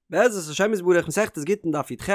בעזרת השם יתברך מסכת גיטין דף י"ח,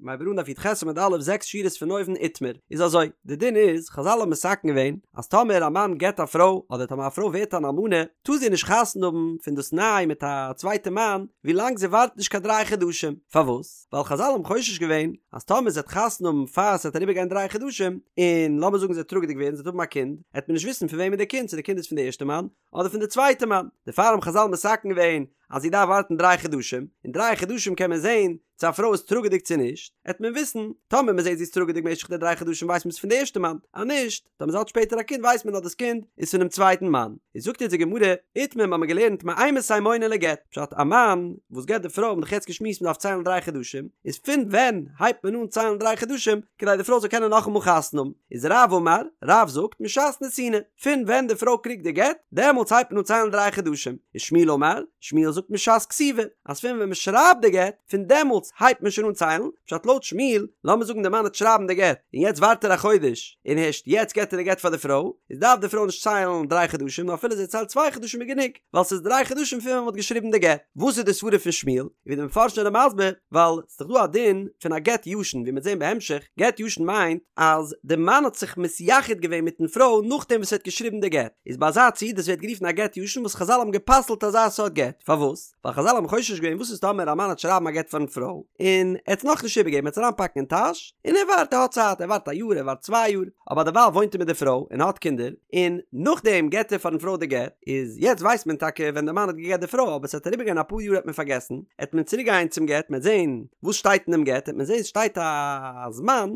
מ'הייבט אן דף י"ח עמוד א' זעקס שורות פון אויבן איתמר, איז אזוי, די דין איז, חזל האבן מתקן געווען, אז טאמער א מאן גט א פרוי, אדער טאמער א פרוי ווערט אן אלמנה, טאר זי נישט חתונה האבן פון דאס ניי מיט א צווייטע מאן, ווי לאנג זי ווארט נישט קיין דריי חדשים, פארוואס? ווייל חזל האבן חושש געווען, אז טאמער זי וועט חתונה האבן פאר ס'וועט אריבער גיין דריי חדשים, און לאמיר זאגן זי וועט טראגעדיג ווערן, זי וועט האבן א קינד, העט מען נישט וויסן פון וועמען די קינד, צו די קינד איז פון די ערשטע מאן, אדער פון די צווייטע מאן, דערפאר האבן חזל מתקן געווען אז זי דארף ווארטן דריי חדשים, אין דריי חדשים קען מען זען צו א פרוי איז טראגעדיג צו נישט, העט מען וויסן, טאמער מען זעט זי איז טראגעדיג משך די דריי חדשים ווייסט מען ס'איז פון די ערשטע מאן, אז נישט, טאמער זי האט שפעטער א קינד ווייסט מען אז דאס קינד איז פונעם צווייטן מאן. איז זאגט אונז די גמרא, איתמר מ'האמיר געלערנט מאימתי מונין לגט, פשט א מאן וואס גט די פרוי האבן דאך יעצט געשמועסט מ'דארף ציילן דריי חדשים, איז פון ווען הייבט מען אן ציילן דריי חדשים כדי די פרוי זאל קענען נאכאמאל חתונה האבן, איז רב אמר, רב זאגט משעת נתינה. פון ווען די פרוי קריגט די גט, דעמאלטס הייבט מען אן ציילן דריי חדשים, ושמואל אמר, שמואל זאגט משעת כתיבה, אז פון ווען מען שרייבט די גט, פון דעמאלטס הייבט מען שוין אן ציילן, פשט לויט שמואל, לאמיר זאגן די מאן וועט שרייבן די גט, און יעצט ווארט ער א חודש, און הערשט יעצט געט ער די גט פאר די פרוי, איז דארף די פרוי נישט ציילן דריי חדשים, נאר אפילו זי ציילט צוויי חדשים איז גענוג, ווייל ס'איז דריי חדשים פון ווען מען האט געשריבן די גט. וואס איז די סברה פון שמואל? און ווי די מפרשים זענען מסביר, ווייל ס'איז דאך דא א דין פון א גט ישן, ווי מ'וועט זען בהמשך, גט ישן מיינט אז די מאן האט זיך מתייחד געווען מיטן פרוי נאכדעם וואס ער האט געשריבן די גט, איז ביי אזא ציור דאס ווערט גערופן א גט ישן וואס חזל האבן גע'פסל'ט אזא סארט גט, פארוואס? ווייל חזל האבן חושש געווען וואס איז טאמער א מאן וועט שרייבן א גט פארן פרוי און ער האט עס נאכנישט איבערגעגעבן ער וועט עס אריינפאקן אין טאש און ער ווארט ער האט צייט ער ווארט א יאר ער ווארט צוויי יאר אבער דערווייל וואוינט ער מיט די פרוי און האט קינדער און נאכדעם געט ער פארן פרוי די גט, איז יעצט ווייסט מען טאקע ווען די מאן האט געגעט די פרוי אבער ס'וועט אריבערגיין אפאר יאר וועט מען פארגעסן, עט מען צוריק גיין צום גט מ'עט זען וואס שטייט אין דעם גט עט מען זען ס'שטייט א זמן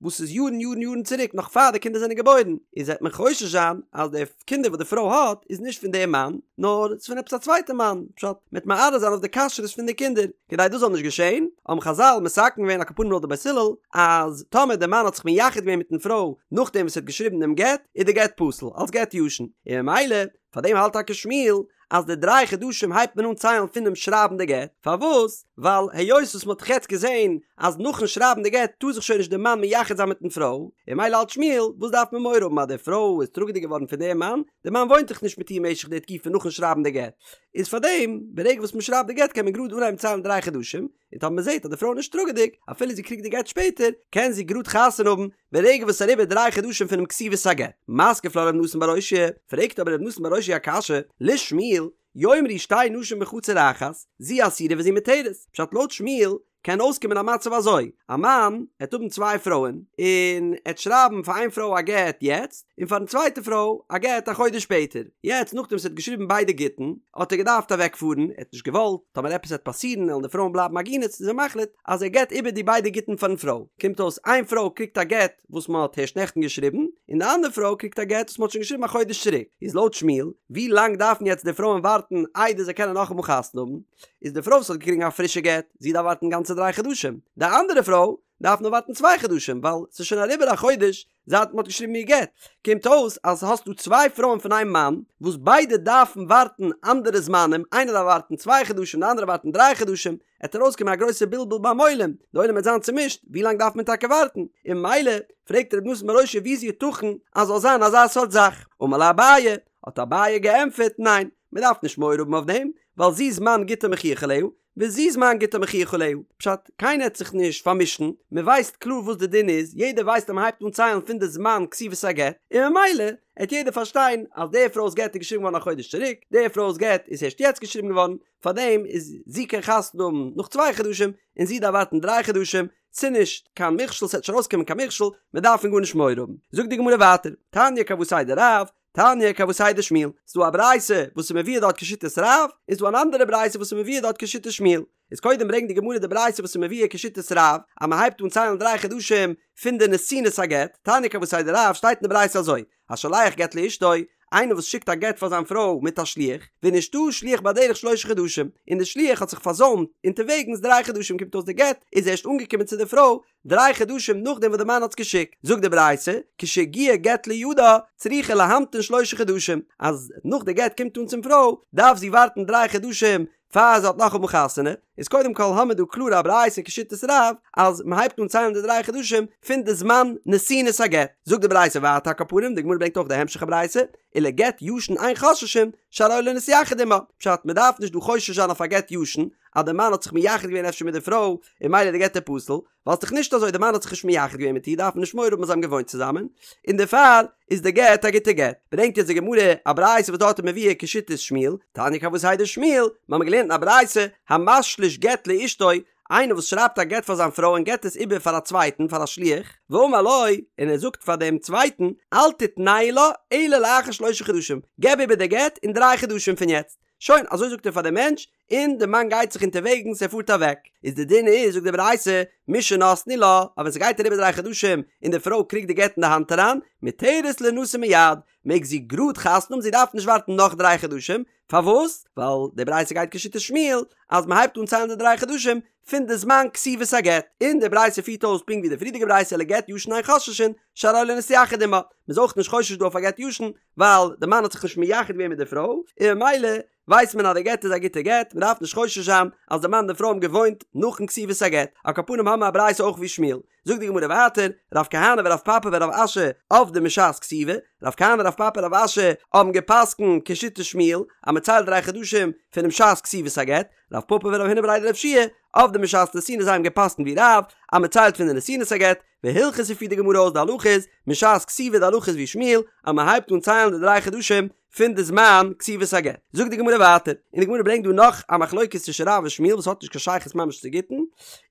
וואס איז יארן יארן יארן צוריק נאך פאר די קינדער זענען געבוירן, איז עט מען חושש זיין אז די קינדער וואס די פרוי האט איז נישט פון דעם מאן נאר ס'איז פון עפעס א צווייטע מאן, פשט מ'עט מערער זיין אויף די כשרות פון די קינדער. כדי דאס זאל נישט געשען, האבן חזל מתקן געווען על כל פנים לויט די בית הלל, אז טאמער דער מאן האט זיך מייחד געווען מיטן פרוי נאכדעם וואס ער האט געשריבן דעם גט, איז די גט פסול, אלס גט ישן, און ממילא, פאר דעם האלט טאקע שמואל, אז די דריי חדשים הייבט מען אן ציילן פונעם שרייבן די גט, פארוואס? ווייל היות וואס מען האט דאך יעצט געזען אז נאכן שרייבן די גט טאר זיך שוין נישט דער מאן מייחד זיין מיטן פרוי, און ממילא האלט שמואל, וואס דארף מען מורא האבן אז די פרוי איז טראגעדיג געווארן פון דעם מאן, דער מאן וואוינט דאך נישט מיט איר משך די תקופה נאכן שרייבן די גט, איז פארדעם ברגע וואס מען שרייבט די גט קען מען גראד אנהייבן ציילן דריי חדשים, און טאמער מען זעט אז די פרוי איז נישט טראגעדיג, אפילו זי קריגט די גט שפעטער, קען זי גראד חתונה האבן ברגע וואס ס'איז אריבער דריי חדשים פונעם כתיבת הגט. מתקיף לה ר' נתן בר אושעיא, פרעגט אבער ר' נתן בר אושעיא א קשיא, לשמואל, יאמרו שתי נשים בחצר אחת, זו אסורה וזו מותרת, פשט לויט שמואל קען אויסקומען א מצב אזוי, א מאן העט האבן צוויי פרויען, און ער העט שרייבן פאר איין פרוי א גט יעצט, און פארן צווייטע פרוי א גט א חודש שפעטער, יעצט נאכדעם וואס ער האט געשריבן ביידע גיטין, האט ער געדארפט אוועק פארן, ער האט נישט געוואלט, טאמער עפעס העט פאסירן וועלן די פרויען בלייבן עגונות, איז ער מחליט אז ער געט איבער די ביידע גיטין פארן פרוי, קומט אויס איין פרוי קריגט א גט וואס מען האט הערשט נעכטן געשריבן, און די אנדערע פרוי קריגט א גט וואס מען האט שוין געשריבן א חודש צוריק, איז לויט שמואל, ווי לאנג דארפן יעצט די פרויען ווארטן איידער זיי קענען נאכאמאל חתונה האבן? איז די פרוי וואס האט געקריגן א פרישע גט, זי דארף ווארטן גאנצע דריי חדשים, די אנדערע פרוי דארף נאר ווארטן צוויי חדשים ווייל ס'איז שוין אריבער א חודש זייט מ'האט געשריבן איר גט, קומט אויס אז האסט דא צוויי פרויען פון איין מאן וואס ביידע דארפן ווארטן אנדערע זמנים, איינער דארף ווארטן צוויי חדשים די אנדערע ווארטן דריי חדשים, עט ארויסקומען א גרויסע בלבול ביים עולם, די עולם וועט זיין צומישט, ווי לאנג דארף מען טאקע ווארטן? און ממילא פרעגט ר' נתן בר אושעיא ווי איז יתכן אז זאל זיין אזא סארט זאך? אמר ליה אביי, האט אביי געענטפערט, ניין, מען דארף נישט מורא האבן אויף דעם, ווייל זו זמן גיטה מוכיח עליה, וזו זמן גיטה מוכיח עליה, פשט, קיינער העט זיך נישט פארמישן, מען ווייסט קלאר וואס די דין איז, יעדער ווייסט אז מען הייבט אן ציילן פון די זמן כתיבת הגט, און ממילא העט יעדער פארשטיין אז די פרוי'ס גט איז געשריבן געווארן א חודש צוריק, די פרוי'ס גט איז הערשט יעצט געשריבן געווארן, פארדעם איז זי קען חתונה האבן נאך צוויי חדשים, און זי דארף ווארטן דריי חדשים, ס'נישט קיין מכשול, ס'העט נישט ארויסקומען קיין מכשול, מען דארף פון גארנישט מורא האבן. זאגט די גמרא ווייטער, תניא כוותיה דרב, תניא כוותיה דשמואל, ס'דא א ברייתא וואס איז מבואר דארט כשיטת רב, און ס'דא אן אנדערע ברייתא וואס איז מבואר דארט כשיטת שמואל. איז קודם ברענגט די גמרא די ברייתא וואס איז מבואר כשיטת רב, אז מ'הייבט אן ציילן דריי חדשים פון די נתינת הגט, תניא כוותיה דרב שטייט אין די ברייתא אזוי, השולח גט לאשתו, איינער וואס שיקט א גט פאר זיין פרוי מיט א שליח, ונשתהא שליח בדרך שלשה חדשים, און די שליח האט זיך פארזוימט אונטערוועגנס דריי חדשים קומט אויס די גט איז ערשט אנגעקומען צו די פרוי דריי חדשים נאכדעם וואס די מאן האט עס געשיקט, זאגט די ברייתא, כשהגיע גט לידה, צריכה להמתין שלשה חדשים, אז נאך די גט קומט אן צום פרוי, דארף זי ווארטן דריי חדשים פאר זי האט נאכאמאל חתונה, איז קודם כל האמיר דא קלאר א ברייתא כשיטת רב, אז מען הייבט אן ציילן די דריי חדשים פון די זמן נתינת הגט, זאגט די ברייתא ווייטער על כל פנים, די גמרא ברענגט אויך די המשך הברייתא, ולגט ישן אין חוששין, שהרי לא נתייחד עמה, פשט, מען דארף נישט דא חושש זיין אויף א גט ישן, אז די מאן האט זיך מייחד געווען אפשר מיט די פרוי און ממילא די גט איז פסול, ווייל ס'דאך נישט אזוי די מאן האט זיך נישט מייחד געווען מיט איר דארף מען נישט מורא האבן אז זיי האבן געוואוינט צוזאמען, און דערפאר איז די גט א גוטע גט. ברענגט יעצט די גמרא א ברייתא וואס דארט איז מבואר כשיטת שמואל, תניא כוותיה דשמואל, מ'האמיר געלערנט אין א ברייתא, המשליש גט לאשתו, איינער וואס שרייבט א גט פאר זיין פרוי און געבט עס איבער פאר א צווייטן פאר א שליח, ואמר לו, און ער זאגט פאר דעם צווייטן, אל תתנהו לה אלא לאחר שלשה חדשים, געב איבער די גט אין דריי חדשים פון יעצט. שוין, אזוי זאגט ער פאר דעם מענטש, און די מאן גייט זיך אונטערוועגנס, ער פארט אוועק. איז די דין איז, זאגט די ברייתא, משנתנו לה, אז ווען ס'גייט אריבער דריי חדשים און די פרוי קריגט די גט אין די האנט אריין, מותרת לינשא מיד, מעג זי גראד חתונה האבן, זי דארף נישט ווארטן נאך דריי חדשים, פארוואס? ווייל די ברייתא גייט כשיטת שמואל אז מען הייבט אן ציילן די דריי חדשים פון די זמן כתיבת הגט, און די ברייתא פירט אויס פונקט ווי די פריערדיגע ברייתא ולגט ישן אין חוששין שהרי לא נתייחד עמה, מען איז אויך נישט חושש דא אויף א גט ישן ווייל די מאן האט זיך נישט מייחד געווען מיט די פרוי, און ממילא ווייסט מען אז די גט איז א גוטע גט, מען דארף נישט חושש זיין אז די מאן און די פרוי האבן געוואוינט נאכן כתיבת הגט, על כל פנים האבן מיר א ברייתא אויך ווי שמואל. זאגט די גמרא ווייטער, רב כהנא ורב פפא ורב אשי עבדי משעת כתיבה, רב כהנא רב פפא רב אשי האבן געפסקנט כשיטת שמואל אז מען ציילט דריי חדשים פונעם שעת כתיבת הגט, רב פפא ורב הונא בריה דרב יהושע עבדי משעת נתינה זיי האבן געפסקנט ווי רב אז מען ציילט פון די נתינת הגט, והלכתא פירט די גמרא אויס די הלכה איז משעת כתיבה די הלכה איז ווי שמואל אז מען הייבט אן ציילן די דריי חדשים פון די זמן כתיבת הגט. זאגט די גמרא ווייטער, און די גמרא ברענגט דא נאך א מחלוקת צווישן רב און שמואל וואס האט נישט קיין שייכות ממש צו גיטין,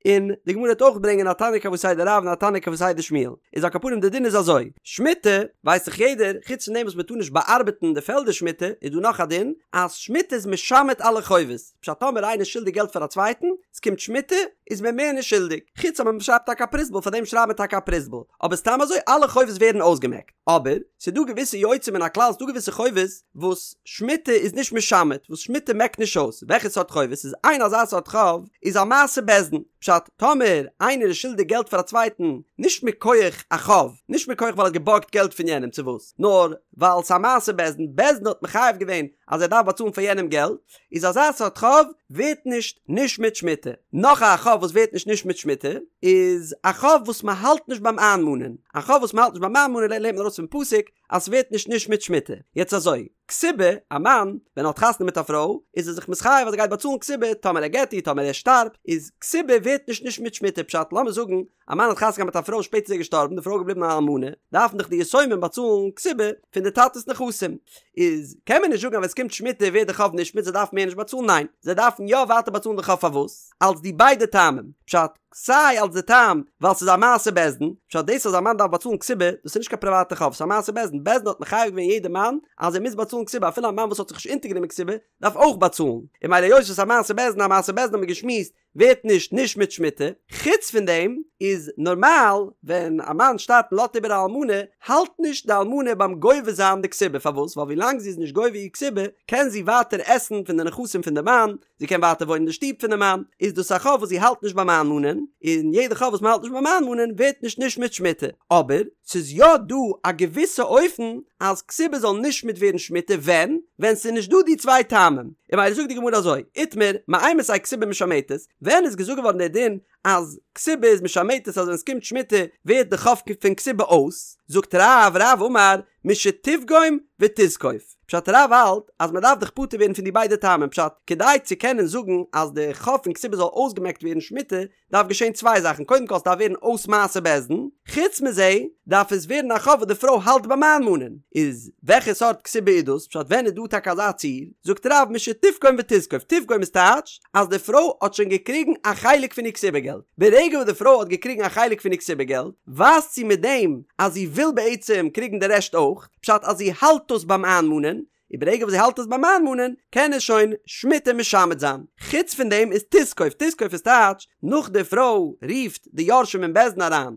און די גמרא וועט אויך ברענגען א תניא כוותיה דרב און א תניא כוותיה דשמואל. איז על כל פנים די דין איז אזוי, שמיטה ווייסט דאך יעדער, חוץ פון דעם וואס מען טאר נישט באארבעטן די פעלדער שמיטה, איז דא נאך א דין, אז שמיטה איז משמט אלע חובות, פשט טאמער איינער איז שולדיג געלט פאר א צווייטן, עס קומט שמיטה, איז מען מער נישט שולדיג, חוץ אויב מען שרייבט טאקע א פרוזבול, פאר דעם שרייבט מען טאקע א פרוזבול, אבער סתם אזוי אלע חובות ווערן אויסגעמעקט. אבער, ס'איז דא געוויסע יוצא מן הכלל, ס'דא געוויסע חובות וואס שמיטה איז נישט משמט, וואס שמיטה מעקט נישט אויס. וועלכע סארט חובות? איז איין אזא סארט חוב איז א מעשה בית דין. פשט, טאמער איינער איז שולדיג געלט פאר א צווייטן, נישט מכח א חוב, נישט מכח ווייל ער האט געבארגט געלט פון יענעם צו וואס, נאר ווייל ס'איז א מעשה בית דין, בית דין האט מחייב געווען אז ער דארף באצאלן פאר יענעם געלט, איז אזא סארט חוב ווערט נישט נשמט שמיטה. נאך א חוב וואס ווערט נישט נשמט שמיטה איז א חוב וואס מען האלט נישט ביים איינמאנען. א חוב וואס מען האלט נישט ביים איינמאנען לערנט מען ארויס פון פסוק אז ס'ווערט נישט נשמט שמיטה. יעצט אזוי, כתובה, א מאן ווען ער האט חתונה מיט א פרוי איז ער זיך מתחייב אז ער גייט באצאלן כתובה טאמער ער גט איר טאמער ער שטארבט, איז כתובה ווערט נישט נשמט שמיטה פשט לאמיר זאגן א מאן האט חתונה געהאט מיט א פרוי שפעטער איז ער געשטארבן די פרוי איז געבליבן א אלמנה דארפן דאך די יתומים באצאלן כתובה פון די טאטעס נכסים איז קען מען נישט זאגן אז ווען עס קומט שמיטה ווערט די חוב נשמט זיי דארפן מער נישט באצאלן ניין זיי דארפן יא ווייטער באצאלן די חוב פארוואס אלס די ביידע טעמים פשט סיי אלס די טעם ווייל ס'איז א מעשה בית דין פשט דאס אז א מאן דארף באצאלן כתובה דאס איז נישט קיין פריוואטע חוב ס'איז א מעשה בית דין בית דין האט מחייב געווען יעדע מאן אז ער מוז באצאלן כתובה אפילו א מאן וואס האט זיך נישט אונטערגענומען כתובה דארף אויך באצאלן און ממילא היות ס'איז א מעשה בית דין א מעשה בית דין האט מען געשמועסט ווערט נישט נשמט שמיטה, חוץ פון דעם איז נארמאל ווען א מאן שטארבט און לאזט איבער א אלמנה, האלט נישט די אלמנה ביים גובה זיין די כתובה, פארוואס? ווייל ווילאנג זי איז נישט גובה איר כתובה קען זי ווייטער עסן פון די נכסים פון די מאן, זי קען ווייטער וואוינען אין די שטוב פון די מאן, איז דאס א חוב וואס זי האלט נישט ביים איינמאנען, און יעדע חוב וואס מען האלט נישט ביים איינמאנען ווערט נישט נשמט שמיטה, אבער ס'איז יא דא א געוויסע אופן אז כתובה זאל נשמט ווערן שמיטה ווען? ווען ס'איז נישט דא די צוויי טעמים. און ממילא זאגט די גמרא אזוי, איתמר, מאימתי כתובה משמטת, ווען איז געזאגט געווארן דער דין אז כתובה איז משמטת אז ווען ס'קומט שמיטה ווערט די חוב פון כתובה אויס? זאגט רב, רב אמר, משתפגום ותזקוף. פשט רב האלט אז מ'דארף דאך פטור ווערן פון די ביידע טעמים פשט כדי צו קענען זאגן אז די חוב פון כתובה זאל אויסגעמעקט ווערן שמיטה דארף געשען צוויי זאכן, קודם כל ס'דארף ווערן אויס מעשה בית דין, חוץ מזה דארף עס ווערן א חוב וואס די פרוי האלט ביים איינמאנען, איז וועלכע סארט כתובה איז דאס, פשט ווען איז דא טאקע אזא ציור, זאגט רב משתפגום ותזקוף, תפגום איז טייטש אז די פרוי האט שוין געקריגן א חלק פון איר כתובה געלט, ברגע וואס די פרוי האט געקריגן א חלק פון איר כתובה געלט, ווייזט זי מיט דעם אז זי וויל בעצם קריגן די רעשט אויך, פשט אז זי האלט דאס ביים איינמאנען, און ברגע וואס זי האלט עס ביים איינמאנען, קען עס שוין שמיטה משמט זיין. חוץ פון דעם איז תזקוף, תזקוף איז טייטש, נאך די פרוי רופט די יורשים אין בית דין אריין,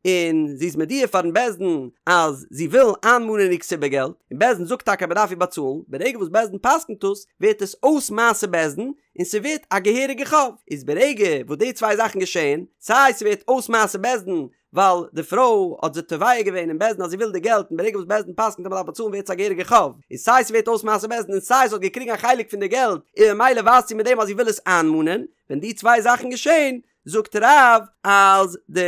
און זי איז מודיע פארן בית דין אז זי וויל איינמאנען איר כתובה געלט, און בית דין זאגט טאקע אז מען דארף איר באצאלן, ברגע וואס בית דין פסק'נט דאס, ווערט עס אויס מעשה בית דין, און ס'ווערט א געהעריגע חוב. איז ברגע וואס די צוויי זאכן געשעהן, סיי ס'ווערט אויס מעשה בית דין, ווייל די פרוי האט זיך תובע געווען אין בית דין אז זי וויל די געלט און ברגע וואס בית דין פסק'נט אז מ'דארף באצאלן ווערט עס א געהעריגע חוב, און סיי ס'ווערט אויס מעשה בית דין און סיי זי האט געקריגן א חלק פון די געלט און ממילא ווייזט זי מיט דעם אז זי וויל עס איינמאנען, ווען די צוויי זאכן געשען זאגט רב אז די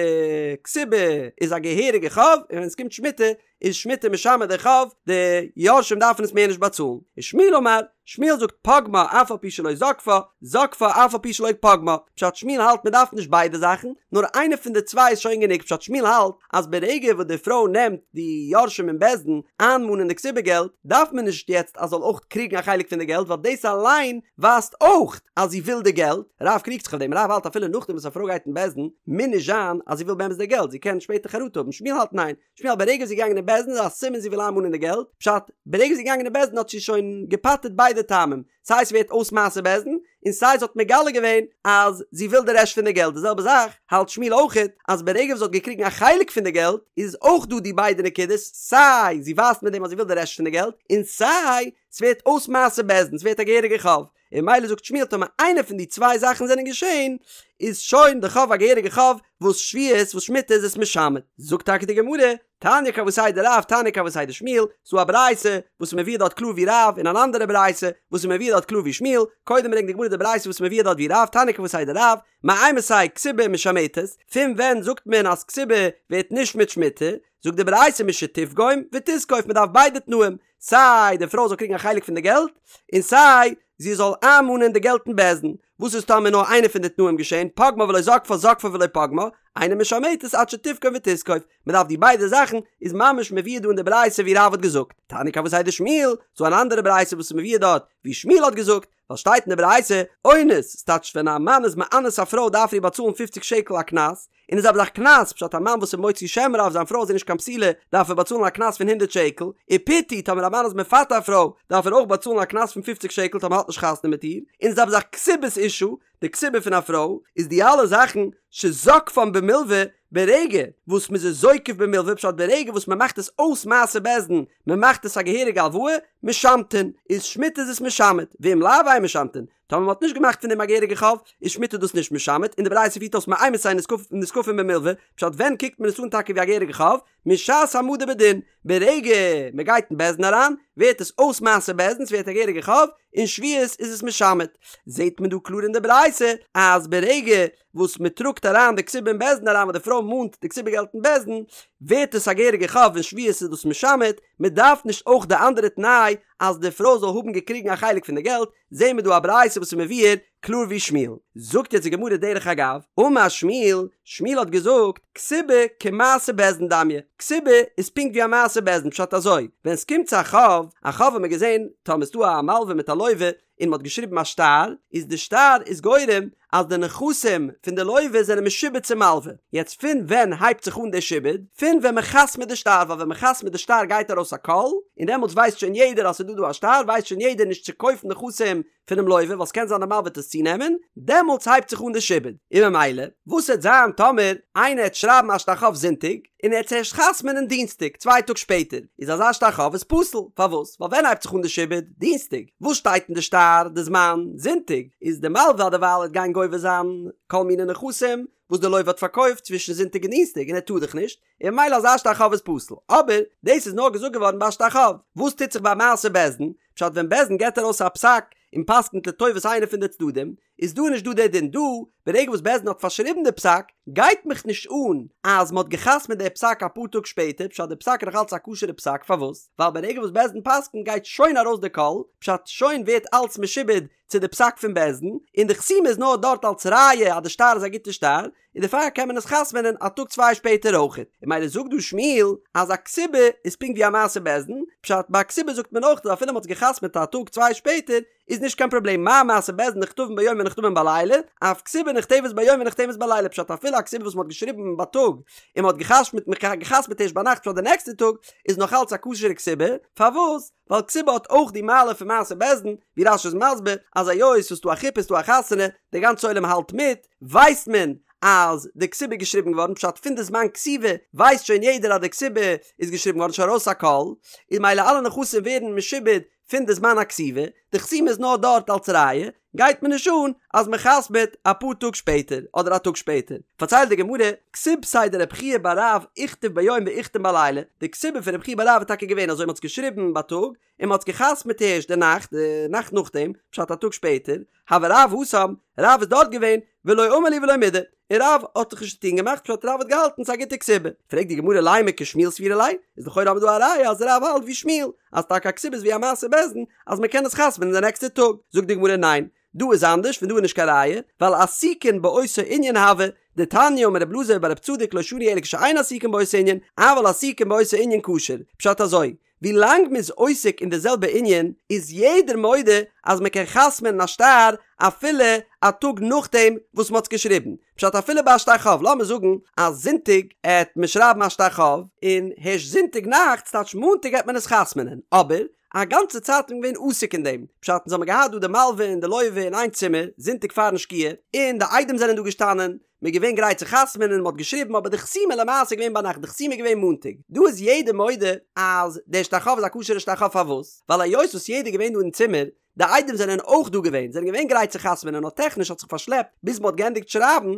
כתובה איז א געהעריגע חוב און ווען עס קומט שמיטה. איז שמיטה משמט די חוב, די יורשים דארפן עס מער נישט באצאלן. ושמואל אמר, שמואל זאגט פגמה אף על פי שלא זקפה, זקפה אף על פי שלא פגמה, פשט שמואל האלט מען דארף נישט ביידע זאכן, נאר איינע פון די צוויי איז שוין גענוג, פשט שמואל האלט אז ברגע וואס די פרוי נעמט די יורשים אין בית דין איינמאנען די כתובה געלט, דארף מען נישט יעצט אז זאל אויך קריגן א חלק פון די געלט ווייל דאס אליין ווייזט אויך אז זי וויל די געלט, רב קריגט זיך אויף דעם, רב האלט אפילו נאכדעם וואס א פרוי גייט אין בית דין מוז נישט זיין אז זי וויל באמת די געלט, זי קען שפעטער חרטה האבן, שמואל האלט ניין, שמואל האלט ברגע זי איז געגאנגען אין בית דין איז א סימן זי וויל איינמאנען די געלט, פשט, ברגע זי איז געגאנגען אין בית דין האט זי שוין געפטר'ט ביידע טעמים, סיי ס'ווערט אויס מעשה בית דין, און סיי זי האט מגלה געווען אז זי וויל די רעשט פון די געלט, די זעלבע זאך האלט שמואל אויכעט אז ברגע וואס זי האט געקריגן א חלק פון די געלט איז אויך דא די ביידע נקודות, סיי זי ווייזט מיט דעם אז זי וויל די רעשט פון די געלט, און סיי ס'ווערט אויס מעשה בית דין, ס'ווערט א געהעריגע חוב. און ממילא זאגט שמואל טאמער איינע פון די צוויי זאכן זענען געשען איז שוין די חוב א געהעריגע חוב וואס שביעית וואס שמיטה איז עס משמט. זאגט טאקע די גמרא, תניא כוותיה דרב תניא כוותיה דשמואל, ס'דא א ברייתא וואס איז מבואר דארט קלאר ווי רב און אן אנדערע ברייתא וואס איז מבואר דארט קלאר ווי שמואל, קודם ברענגט די גמרא די ברייתא וואס איז מבואר דארט ווי רב, תניא כוותיה דרב, מאימתי כתובה משמטת, פון ווען זאגט מען אז כתובה ווערט נשמט שמיטה, זאגט די ברייתא משתפגום ותזקוף מען דארף ביידע תנאים, סיי די פרוי זאל קריגן א חלק פון די געלט, און סיי זי זאל איינמאנען די געלט אין בית דין. וואס איז טאמער נאר איינע פון די תנאים געשען, פגמה ולא זקפה זקפה ולא פגמה, אינה משמטת עד שתפגום ותזקוף, מען דארף די ביידע זאכן, איז ממש מבואר דא אין די ברייתא ווי רב האט געזאגט, תניא כוותיה דשמואל, ס'דא אן אנדערע ברייתא וואס איז מבואר דארט ווי שמואל האט געזאגט, ווייל שטייט אין די ברייתא, אונס, ס'טייטש ווען א מאן איז מאנס א פרוי דארף ער איר באצאלן פופציג שקל א קנס, און די זעלבע זאך קנס, פשט א מאן וואס איז מוציא שם רע אויף זיין פרוי אז זי איז נישט קיין בתולה, דארף ער באצאלן א קנס פון הונדערט שקל, ופיתוי, טאמער א מאן איז מפתה א פרוי, דארף ער אויך באצאלן א קנס פון פופציג שקל טאמער האט נישט חתונה מיט איר, און די זעלבע זאך כתובת אשה, די כתובה פון א פרוי, איז די אלע זאכן שזוקפן במלוה, ברגע וואס מ'איז עס זוקף במלוה, פשט ברגע וואס מ'מאכט עס אויס מעשה בית דין, מ'מאכט עס א געהעריגע הלוואה, משמטין, איז שמיטה איז עס משמט, ואם לאו אין משמטין, טאמער מ'האט נישט געמאכט פון דעם א געהעריגע חוב, איז שמיטה דאס נישט משמט, און די ברייתא פירט אויס מאימתי נזקפין במלוה, פשט ווען קוקט מען עס אן טאקע ווי א געהעריגע חוב? משעת העמדה בדין, ברגע מ'גייט אין בית דין אריין, ווערט עס אויס מעשה בית דין, ס'ווערט א געהעריגע חוב, און שביעית איז עס משמט. זעט מען דא קלאר אין די ברייתא, אז ברגע וואס מ'טראגט אריין די כתובה אין בית דין אריין וואס די פרוי מאנט די כתובה געלט אין בית דין, ווערט עס א געהעריגע חוב און שביעית איז דאס משמט, מ'דארף נישט אויך די אנדערע תנאי אז די פרוי זאל האבן געקריגן א חלק פון די געלט, זעהן מיר דא א ברייתא וואס איז מבואר קלאר ווי שמואל. זאגט יעצט די גמרא דרך אגב, אמר שמואל, שמואל האט געזאגט, כתובה כמעשה בית דין דמיא, כתובה איז פונקט ווי א מעשה בית דין, פשט אזוי, ווען ס'קומט צו א חוב, א חוב האט מען געזעהן, טאמער ס'דא א מלווה מיט א לווה, און מ'האט געשריבן א שטר, איז די שטר איז גורם אז די נכסים פון די לווה זענען משועבד צום מלווה. יעצט פון ווען הייבט זיך אן די שעבוד? פון ווען מ'חתמ'ט די שטר, ווייל ווען מ'חתמ'ט די שטר גייט ארויס א קול, און דעמאלטס ווייסט שוין יעדער אז ס'איז דא דא א שטר, ווייסט שוין יעדער נישט צו קויפן נכסים פונעם לווה, ווייל ס'קען זיין די מלווה וועט עס צונעמען, דעמאלטס הייבט זיך אן די שעבוד. און ממילא, וואס העט זיין טאמער איינער העט שרייבן א שטר חוב זונטאג, און ער העט עס ערשט חתמ'נען דינסטאג, צוויי טאג שפעטער, איז אזא שטר חוב איז פסול, פארוואס? ווייל ווען הייבט זיך אן די שעבוד? דינסטאג. וואס שטייט אין די שטר די זמן? זונטאג. איז די מלווה דערווייל העט גיין גובה זיין כל מיני נכסים וואס די לווה האט פארקויפט צווישן זונטאג און דינסטאג און ער טאר דאך נישט, און ממילא אזא שטר חוב איז פסול. אבער דאס איז נאר געזאגט געווארן ביי א שטר חוב. וואס טוט זיך ביי מעשה בית דין? פשט ווען בית דין געבט ארויס א פסק און פסק'נט לטובת איינע פון די צדדים, איז דא נישט דא דער דין דא, ברגע וואס בית דין האט פארשריבן די פסק, גייט מיך נישט אן אז מ'האט געחתמ'ט די פסק אפאר טאג שפעטער, פשט די פסק איז נאך אלץ א כשר'ע פסק, פארוואס? ווייל ברגע וואס בית דין פסק'נט גייט שוין ארויס די קול, פשט שוין ווערט אלץ משועבד צו די פסק פון בית דין, און די חתימה איז נאר דארט אלץ ראיה אז די שטר איז א גוטע שטר, און דערפאר קען מען עס חתמ'נען א טאג צוויי שפעטער אויכעט. און ממילא זאגט דא שמואל אז א כתובה איז פונקט ווי א מעשה בית דין, פשט ביי א כתובה זאגט מען אויך אז אפילו מ'האט עס געחתמ'ט א טאג צוויי שפעטער איז נישט קיין פראבלעם מה מעשה בית דין נכתבין ביום ונחתמין בלילה, אף כתובה נכתבת ביום ונחתמת בלילה, פשט אפילו א כתובה וואס מ'האט געשריבן בייטאג און מ'האט געחתמ'ט ערשט ביינאכט פאר די נעקסטע טאג איז נאך אלץ א כשר'ע כתובה, פארוואס? ווייל כתובה האט אויך די מעלה פון מעשה בית דין, ווי רש"י איז מסביר אז היות ס'איז דא א חופה איז דא א חתונה, די גאנצע עולם האלט מיט, ווייסט מען אז די כתובה איז געשריבן געווארן, פשט פון די זמן כתיבה ווייסט שוין יעדער אז די כתובה איז געשריבן געווארן, שוין ארויס א קול, און ממילא אלע נכסים ווערן משועבד פון די זמן הכתיבה, די חתימה איז נאר דארט אלס ראיה, גייט מיר נישט אן אז מען חתמ'עט אפאר טאג שפעטער אדער א טאג שפעטער. פארציילט די גמרא, כתובתיה דרב חייא בר רב איכתב ביום ואיחתם בלילה, די כתובה פון רב חייא בר רב איז טאקע געווען אזוי מען האט עס געשריבן בייטאג און מען האט עס געחתמ'עט הערשט די נאכט, די נאכט נאכדעם, פשט א טאג שפעטער, הוה רב התם, רב איז דארט געווען, ולא אמר להו ולא מידי, און רב האט זיך נישט צוטון געמאכט פשט רב האט געהאלטן ס'איז א גוטע כתובה. פרעגט די גמרא לימא כשמואל סבירא ליה, איז לכאורה האבן מיר דא א ראיה אז רב האלט ווי שמואל, אז טאקע א כתובה איז ווי א מעשה בית דין אז מ'קען עס חתמ'נען די נעקסטע טאג. זאגט די גמרא ניין, דא איז אנדערש פון דא איז נישט קיין ראיה, ווייל עסוקין באותו ענין הוו, דתניא אמר רב אלעזר בר רב צדוק לא שנו אלא כשאין עסוקין באותו ענין, אבל עסוקין באותו ענין כשר, פשט אזוי, ווי לאנג מ'איז עוסק אין די זעלבע ענין איז יעדער מודה אז מ'קען חתמ'נען א שטר אפילו א טאג נאכדעם וואס מ'האט עס געשריבן. פשט אפילו ביי א שטר חוב, לאמיר זאגן אז זונטאג עט מען שרייבן א שטר חוב, און הערשט זונטאג נאכט, ס'טייטש מאנטאג עט מען עס חתמ'נען, אבער א גאנצע צייט איז מען געווען עוסק אין דעם, פשט אונז האמיר געהאט דא די מלווה און די לווה אין איין צימער זונטאג פארן שקיעה, און די עדים זענען דא געשטאנען, מ'איז געווען גרייט צו חתמ'נען און מ'האט געשריבן אבער די חתימה למעשה איז געווען ביינאכט די חתימה איז געווען מאנטאג דא איז יעדער מודה אז דער שטר חוב איז א כשר'ע שטר חוב פארוואס ווייל היות וואס יעדער איז געווען דא אין צימער די עדים זענען אויך דא געווען זענען געווען גרייט צו חתמ'נען נאר טעכניש האט זיך פארשלעפט ביז מ'האט געענדיגט שרייבן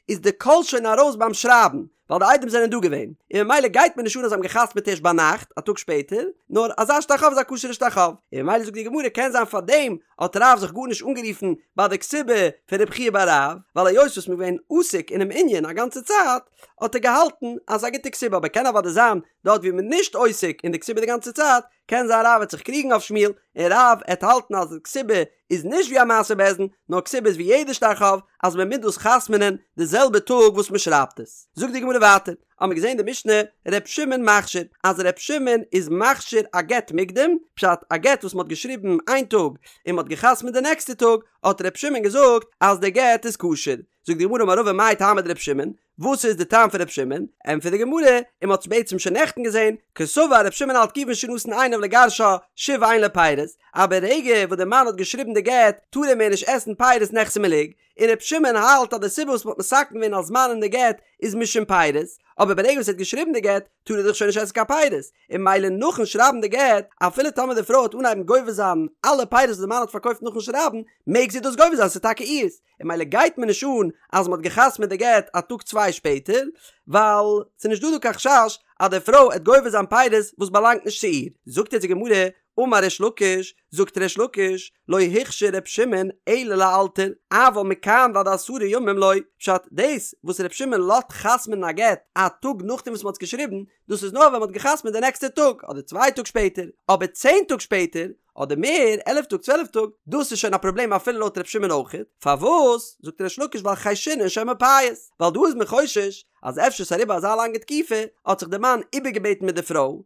איז די קול שוין ארויס ביים שרייבן ווייל די עדים זענען דא געווען, און ממילא גייט מיר נישט אן אז זיי האבן געחתמ'עט ערשט ביינאכט, א טאג שפעטער, נאר אזא שטר חוב איז א כשר'ע שטר חוב, און ממילא זאגט די גמרא קען זיין פארדעם האט רב זיך גארנישט אנגערופן ביי די כתובה פון רב חייא בר רב, ווייל היות וואס מ'איז געווען עוסק אינעם ענין א גאנצע צייט, האט ער געהאלטן אז ס'איז א גוטע כתובה, אבער קען אוודאי זיין דארט ווי מ'איז נישט עוסק אין די כתובה די גאנצע צייט, קען זיין רב וועט זיך קריגן אויף שמואל, און רב עט האלטן אז די כתובה איז נישט ווי א מעשה בית דין, נאר כתובה איז ווי יעדע שטר חוב, אז מען מוז דאס חתמ'נען די זעלבע טאג וואס מען שרייבט עס. זאגט די גמרא ווייטער, האמיר געזען די משנה ר' שמעון מכשיר, אז ר' שמעון איז מכשיר א גט מוקדם, פשט א גט וואס מען האט געשריבן איין טאג און מען האט געחתמ'ט די נעקסטע טאג, האט ר' שמעון געזאגט אז די גט איז כשר. זאגט די גמרא אמר רבא מאי טעמא דר' שמעון, וואס איז די טעם פון ר' שמעון? ענטפערט די גמרא, און מען האט עס בעצם שוין נעכטן געזען, קסבר ר' שמעון האלט כיוון שנתן עיניו לגרשה שוב אין לו פירות, אז ברגע וואס די מאן האט געשריבן די גט טאר ער מער נישט עסן פירות נכסי מלוג, און ר' שמעון האלט אז די סיבה וואס מען האט מתקן געווען א זמן אין די גט איז משום פירות, אבער ברגע וואס ער האט געשריבן די גט טאר ער דאך שוין נישט עסן קיין פירות, און ממילא נאכן שרייבן די גט, אפילו טאמער די פרוי וועט אנהייבן גובה זיין אלע פירות וואס די מאן האט פארקויפט נאכן שרייבן, מעג זי דאס גובה זיין ס'איז טאקע אירס, און ממילא גייט מיר נישט אן אז מ'האט געחתמ'עט די גט א טאג צוויי שפעטער, ווייל ס'איז נישט דא דא קיין חשש אז די פרוי עט גובה זיין פירות וואס באלאנגט נישט צו איר. זאגט יעצט די גמרא, אמר ריש לקיש, זאגט ריש לקיש, לא הכשיר ר' שמעון אלא לאלתר, אבל מכאן ועד עשרה ימים לא, פשט, דאס וואס ר' שמעון לאזט חתמ'נען א גט א טאג נאכדעם וואס מ'האט עס געשריבן, דאס איז נאר ווען מ'האט געחתמ'עט די נעקסטע טאג, אדער צוויי טאג שפעטער, אבער צען טאג שפעטער, אדער מער, עלף טאג צוועלף טאג, דאס איז שוין א פראבלעם אפילו לויט ר' שמעון אויכעט, פארוואס זאגט ריש לקיש ווייל חיישינן שמא פייס, ווייל דא איז מען חושש אז אפשר ס'איז אריבער אזא לאנגע תקופה האט זיך די מאן איבערגעבעטן מיט די פרוי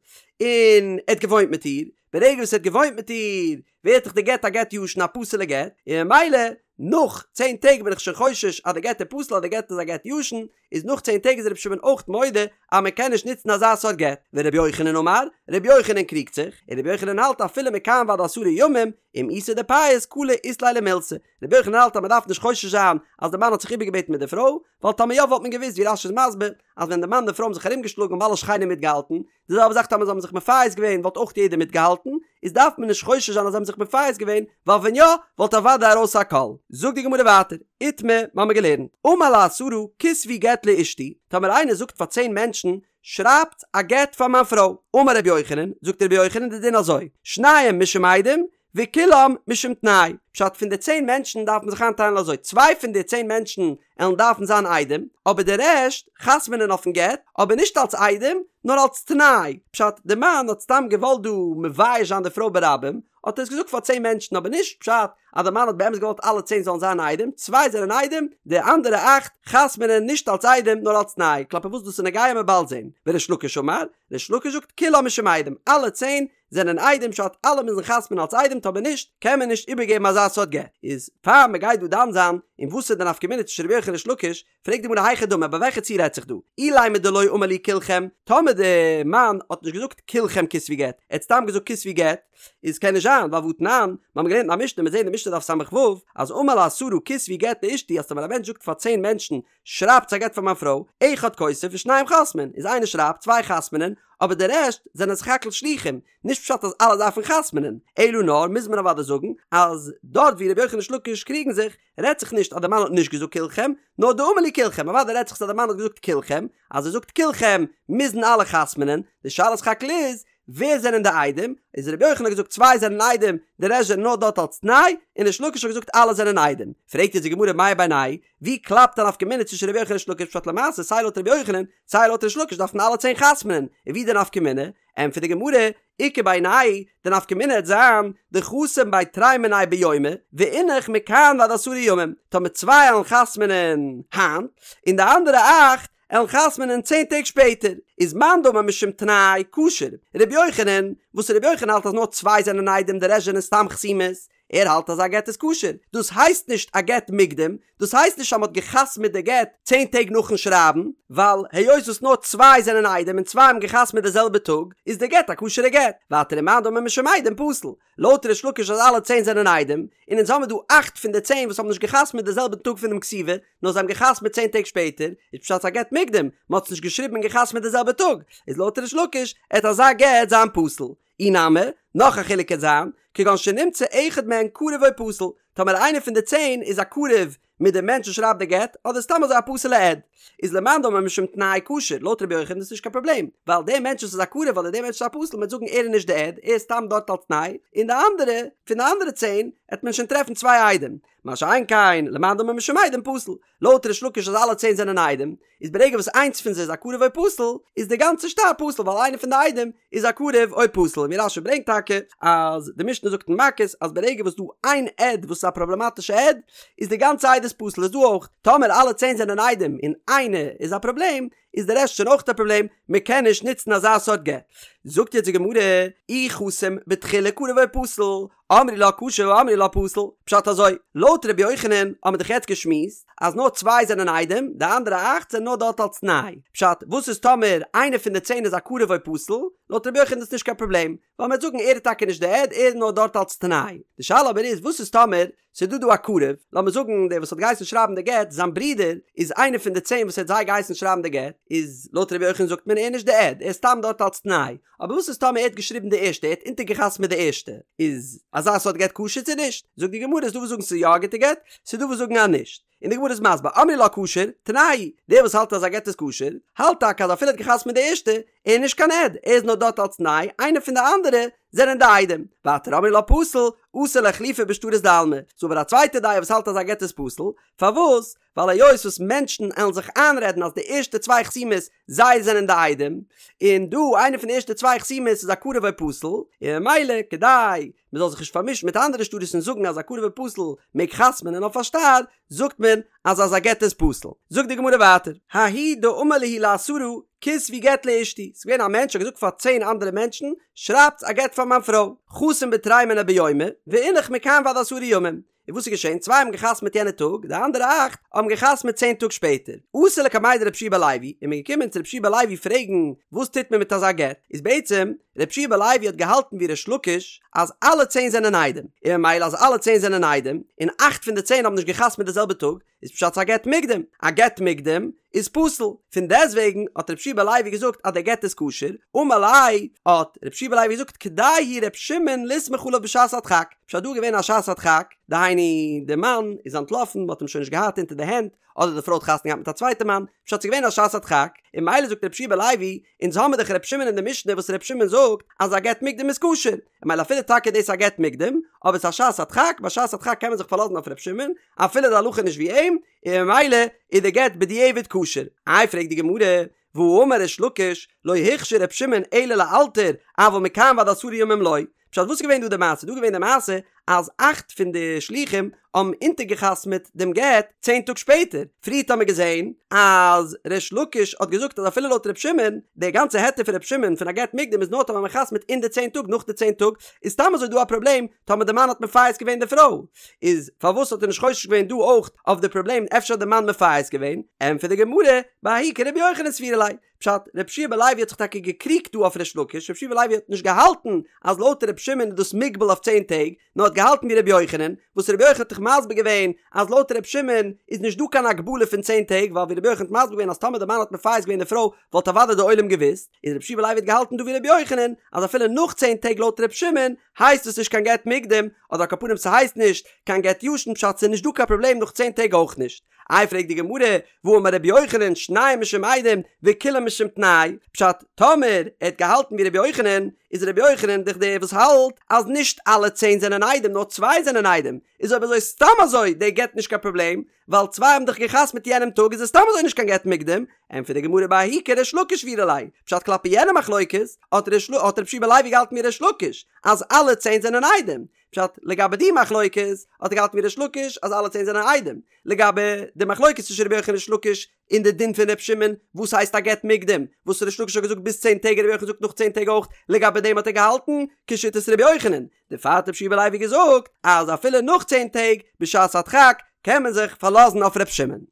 און ער האט געוואוינט מיט איר, ברגע וואס ער האט געוואוינט מיט איר ווערט דאך די גט א גט ישן א פסול'ע גט, און ממילא נאך צען טעג בין איך שוין חושש אז די גט איז פסול אז די גט איז א גט ישן, איז נאך צען טעג איז רבי שמעון אויך מודה אז מען קען נישט נוצן אזא סארט גט, ורבי יוחנן אמר, רבי יוחנן קריגט זיך, און רבי יוחנן האלט אפילו מכאן ועד עשרה ימים, אם איתא דפייס קלא אית ליה למילתא, רבי יוחנן האלט אז מען דארף נישט חושש זיין אז די מאן האט זיך איבערגעבעטן מיט די פרוי, ווייל טאמער יא וואלט מען געוואוסט ווי רש"י איז מסביר אז ווען די מאן און די פרוי האבן זיך ארומגעשלאגן האבן אלע שכנים מיטגעהאלטן, די זעלבע זאך טאמער זיי האבן זיך מפייס געווען וואלט אויך יעדער מיטגעהאלטן, איז דארף מען נישט חושש זיין אז זיי האבן זיך מפייס געווען, ווייל ווען יא וואלט אוודאי ארויס א קול. זאגט די גמרא ווייטער, איתמר, מ'האמיר געלערנט, אמר לעשרה כתבו גט לאשתי, טאמער איינער זאגט פאר צען מענטשן, שרייבטס א גט פאר מיין פרוי, אמר רבי יוחנן, זאגט רבי יוחנן די דין אזוי, שניים משום עדים, וכולם משום תנאי, פשט פון די צען מענטשן דארף מען זיך איינטיילן אזוי, צוויי פון די צען מענטשן עלן דארפן זיין עדים, אבער די רעשט חתמ'נען אויפן גט, אבער נישט אלס עדים, נאר אלס תנאי, פשט די מאן האט סתם געוואלט דא מבייש זיין די פרוי ברבים, האט ער עס געזאגט פאר צען מענטשן, אבער נישט פשט אז די מאן האט באמת געוואלט אלע צען זאלן זיין עדים, צוויי זענען עדים, די אנדערע אכט חתמ'נען נישט אלס עדים נאר אלס תנאי, כלפי וואס דאס איז נוגע עמיר באלד זען, וריש לקיש אמר, ריש לקיש זאגט כולם משום עדים, אלע צען זענען עדים פשט אלע מוזן חתמ'ן אלס עדים טאמער נישט קען מען נישט איבערגעבן אזא סארט גט איז פאר מען גייט דא דן זיין אין וואס איז די נפקא מינה צווישן רבי יוחנן און ריש לקיש פרעגט די גמרא היכי דמי ביי וועלכע ציור רעדט זיך דא אילימא דלא אמר להו כולכם טאמער די מאן האט נישט געזאגט כולכם כתבו גט ער האט סתם געזאגט כתבו גט איז קען נישט זיין. זיין, ווייל והתנן, מיר האבן געלערנט אין א משנה, מיר זעהן אין משנה דף ס"ו, אז אמר לעשרה כתבו גט לאשתי אז טאמער א מענטש זאגט פאר צען מענטשן שרייבטס א גט פאר מיין פרוי, אחד כותב ושניים חותמין, איז איינער שרייבט, צוויי חתמ'נען, אבער די רעשט זענען סך הכל שלוחים, נישט פשט אז אלע דארפן חתמ'נען, אלא נאר מוז מען אוודאי זאגן אז דארט ווי רבי יוחנן און ריש לקיש קריגן זיך, רעדט זיך נישט אז די מאן האט נישט געזאגט כולכם, נאר דאמר להו כולכם, אוודאי רעדט זיך אז די מאן האט געזאגט כולכם, אז ער זאגט כולכם מוזן אלע חתמ'נען, די שאלה סך הכל איז, ווער זענען די עדים, איז רבי יוחנן האט געזאגט צוויי זענען עדים, די רעשט זענען נאר דארט אלס תנאי, און ריש לקיש האט געזאגט אלע זענען עדים. פרעגט יעצט די גמרא מאי בינייהו ווי קלאפט א נפקא מינה צווישן רבי יוחנן און ריש לקיש פשט למעשה סיי לויט רבי יוחנן סיי לויט ריש לקיש דארפן אלע צען חתמ'נען, און ווי די נפקא מינה? ענטפערט די גמרא, איכא בינייהו, די נפקא מינה העט זיין, דחתים בי תרי מינייהו ביומא, ואינך מכאן ועד עשרה ימים, טאמער צוויי עלן חתמ'נען היינט, און די אנדערע אכט עלן חתמ'נען צען טעג שפעטער, איז מאן דאמר משום תנאי כשר, רבי יוחנן, וואס רבי יוחנן האלט אז נאר צוויי זענען עדים די רעשט זענען סתם חתימות, ער האלט אז א גט איז כשר, דאס הייסט נישט א גט מוקדם, דאס הייסט נישט אז מ'האט גע'חתמ'עט די גט צען טעג נאכן שרייבן, ווייל היות וואס נאר צוויי זענען עדים און צוויי האבן גע'חתמ'עט די זעלבע טאג, איז די גט א כשר'ע גט. ווייטער ומאן דאמר משום עדים פסול. לויט ריש לקיש אז אלע צען זענען עדים, און אונז האמיר דא אכט פון די צען וואס האבן נישט גע'חתמ'עט די זעלבע טאג פונעם כתיבה, נאר זיי האבן גע'חתמ'עט צען טעג שפעטער, איז פשט ס'איז א גט מוקדם, מ'האט עס נישט געשריבן און גע'חתמ'עט די זעלבע טאג, איז לויט ריש לקיש, עט אזא גט זיין פסול. אי נמי, נאך א חילוק קען זיין, כגון שנמצא אחד מהן קרוב או פסול, טאמער איינער פון די צען איז א קרוב מיט די מענטש וואס שרייבט די גט, אדער סתם אזוי א פסול'ע עד, איז למאן דאמר משום תנאי כשר, לויט רבי יוחנן איז עס נישט קיין פראבלעם, ווייל דער מענטש וואס איז א קרוב אדער דער מענטש וואס איז א פסול מ'וועט זאגן ער איז נישט די עד, ער איז סתם דארט אלס תנאי, און די אנדערע, פון די אנדערע צען, עט מען שוין טרעפן צוויי עדים. מה שאין כן, למאן דאמר משום עדים פסול, לויט ריש לקיש אז אלע צען זענען עדים, איז ברגע וואס איינס פון זיי איז א קרוב או פסול, איז די גאנצע שטר פסול ווייל איינער פון די עדים איז א קרוב או פסול, און ווי רש"י ברענגט טאקע אז די משנה זאגט אין מכות אז ברגע וואס דא איין עד וואס איז א פראבלעמאטישע עד, איז די גאנצע עדות פסול, איז דא אויך טאמער אלע צען זענען עדים און איינער איז א פראבלעם, איז די רעשט שוין אויך א פראבלעם, מען קען נישט נוצן אזא סארט גט. זאגט יעצט די גמרא, אי חתים בתחילה קרוב או פסול, אמרי לה כשר ואמרי לה פסול, פשט אזוי, לויט ר' יוחנן האבן מיר דאך יעצט געשמועסט אז נאר צוויי זענען עדים, די אנדערע אכט זענען נאר דארט אלס תנאי, פשט, וואס איז טאמער איינער פון די צען איז א קרוב או פסול, לויט ר' יוחנן איז דאס נישט קיין פראבלעם, ווייל מ'וועט זאגן ער איז טאקע נישט די עד, ער איז נאר דארט אלס תנאי. די שאלה אבער איז וואס איז טאמער ס'איז דא דא א קרוב, לאמיר זאגן דער וואס האט געהייסן שרייבן די גט, זיין ברודער איז איינער פון די צען וואס ער האט זיי געהייסן שרייבן די גט, איז לויט ר' יוחנן זאגט מען ער איז נישט די עד, ער איז סתם דארט אלס תנאי, אבער וואס איז טאמער ער האט געשריבן די ערשטע, ער האט אונטערגעחתמעט די ערשטע, איז אזא סארט גט כשר צו נישט? זאגט די גמרא, ס'איז דא וואס זאגן ס'איז יא א גוטע גט, ס'איז דא וואס זאגן אז נישט. און די גמרא איז מסביר, אמרי לה כשר, תנאי, דער וואס האלט אז א גט איז כשר, האלט טאקע אז אפילו ער האט געחתמעט די ערשטע, ער איז נישט קיין עד, ער איז נאר דארט אלס תנאי, איינער פון די אנדערע זענען די עדים. ווייטער אמרי לה פסול, אתי לאיחלופי בשטרות דעלמא. ס'איז אבער א צווייטע דעה וואס האלט אז א גט איז פסול, פארוואס? ווייל היות וואס מענטשן עלן זיך איינרעדן אז די ערשטע צוויי חתימות זיי זענען די עדים, און דא איינער פון די ערשטע צוויי חתימות איז א קרוב או פסול, און ממילא כדי מען זאל זיך נישט פארמישן מיט אנדערע שטרות און זאגן אז א קרוב או פסול מעג חתמ'נען אויף א שטר, זאגט מען אז אזא גט איז פסול. זאגט די גמרא ווייטער, ההוא דאמר להו לעשרה כתבו גט לאשתי, ס'איז געווען א מענטש האט געזאגט פאר צען אנדערע מענטשן, שרייבטס א גט פאר מיין פרוי, חתים בתרי מינייהו ביומא, ואינך מכאן ועד עשרה ימים. און וואס איז געשען? צוויי האבן געחתמעט יענע טאג, די אנדערע אכט האבן געחתמעט צען טאג שפעטער. אתו לקמיה דרבי יהושע בן לוי, איז מען געקומען צו רבי יהושע בן לוי פרעגן וואס טוט מען מיט אזא גט, איז בעצם רבי יהושע בן לוי האט געהאלטן ווי ריש לקיש אז אלע צען זענען עדים, און ממילא אז אלע צען זענען עדים, און אכט פון די צען האבן נישט געחתמעט די זעלבע טאג, איז פשט ס'איז א גט מוקדם, א גט מוקדם איז פסול, פון דעסטוועגן האט רבי יהושע בן לוי געזאגט אז דער גט איז כשר, אמר ליה, האט רבי יהושע בן לוי געזאגט כדאי הוא ר' שמעון לסמוך עליו בשעת הדחק, פשט דא איז געווען א שעת הדחק, דהיינו די מאן איז אנטלאפן מ'האט אים שוין נישט געהאט אונטער די הענט, אדער די פרוי האט חתונה געהאט מיט א צווייטע מאן, פשט ס'איז געווען א שעת הדחק, און ממילא זאגט רבי יהושע בן לוי, אונז האמיר דאך ר' שמעון אין די משנה וואס ר' שמעון זאגט אז א גט מוקדם איז כשר, און ממילא אפילו טאקע דאס איז א גט מוקדם, אבער ס'איז א שעת הדחק, ביי שעת הדחק קען מען זיך פארלאזן אויף ר' שמעון, אפילו די הלכה איז נישט ווי אים, און ממילא איז די גט בדיעבד כשר. איי פרעגט די גמרא, והאמר ריש לקיש, לא הכשיר ר' שמעון אלא לאלתר, אבל מכאן ועד עשרה ימים לא. פשט וואס איז געווען דא די מעשה? דא איז געווען די מעשה אז אכט פון די שלוחים האבן אונטערגעחתמעט דעם גט צען טאג שפעטער, פריערט האמיר געזען אז ריש לקיש האט געזאגט אז אפילו לויט ר' שמעון, די גאנצע היתר פון ר' שמעון פון א גט מוקדם איז נאר טאמער מען חתמ'ט אין די צען טאג, נאך די צען טאג איז סתם אזוי דא א פראבלעם טאמער די מאן האט מפייס געווען די פרוי, איז פארוואס האט ער נישט חושש געווען דא אויך אויף די פראבלעם אפשר האט די מאן מפייס געווען, ענטפערט די גמרא, בההיא כרבי יוחנן סבירא ליה, פשט, רבי יהושע בן לוי האט זיך טאקע געקריגט דא אויף ריש לקיש, רבי יהושע בן לוי האט נישט געהאלטן אז לויט רבי שמעון איז דאס מוגבל אויף צען טעג, נאר האט געהאלטן ווי רבי יוחנן, וואס רבי יוחנן האט דאך מסביר געווען אז לויט רבי שמעון איז נישט דא קיין הגבלה פון צען טעג, ווייל ווי רבי יוחנן האט מסביר געווען אז טאמער די מאן האט מפייס געווען די פרוי וואלט אוודאי די עולם געוואוסט, איז רבי יהושע בן לוי האט געהאלטן דא ווי רבי יוחנן אז אפילו נאך צען טעג לויט רבי שמעון הייסט עס נישט קיין גט מוקדם, אדער על כל פנים ס'הייסט נישט קיין גט ישן פשט ס'איז נישט דא קיין פראבלעם נאך צען טעג אויך נישט. איי פרעגט די גמרא, והאמר רבי יוחנן שנים משום עדים וכולן משום תנאי, פשט, טאמער ער האט געהאלטן ווי רבי יוחנן, איז רבי יוחנן דאך דער וואס האלט אז נישט אלע צען זענען עדים נאר צוויי זענען עדים, איז אויב אזוי סתם אזוי דער גט נישט קיין פראבלעם, ווייל צוויי האבן דאך געחתמ'ט יענעם טאג איז עס סתם אזוי נישט קיין גט מוקדם, ענטפערט די גמרא בההיא כריש לקיש סבירא ליה, פשט כלפי יענע מחלוקת האט רבי יהושע בן לוי געהאלטן ווי ריש לקיש אז אלע צען זענען עדים, פשט, לגבי די מחלוקת האט ער געהאלטן ווי ריש לקיש אז אלע צען זענען עדים, לגבי די מחלוקת צווישן רבי יוחנן און ריש לקיש אין די דין פון ר' שמעון וואס הייסט א גט מוקדם, וואס ריש לקיש האט געזאגט ביז צען טעג און רבי יוחנן זאגט נאך צען טעג אויך, לגבי דעם האט ער געהאלטן כשיטת רבי יוחנן, דערפאר האט רבי יהושע בן לוי געזאגט אז אפילו נאך צען טעג בשעת הדחק קען מען זיך פארלאזן אויף ר' שמעון.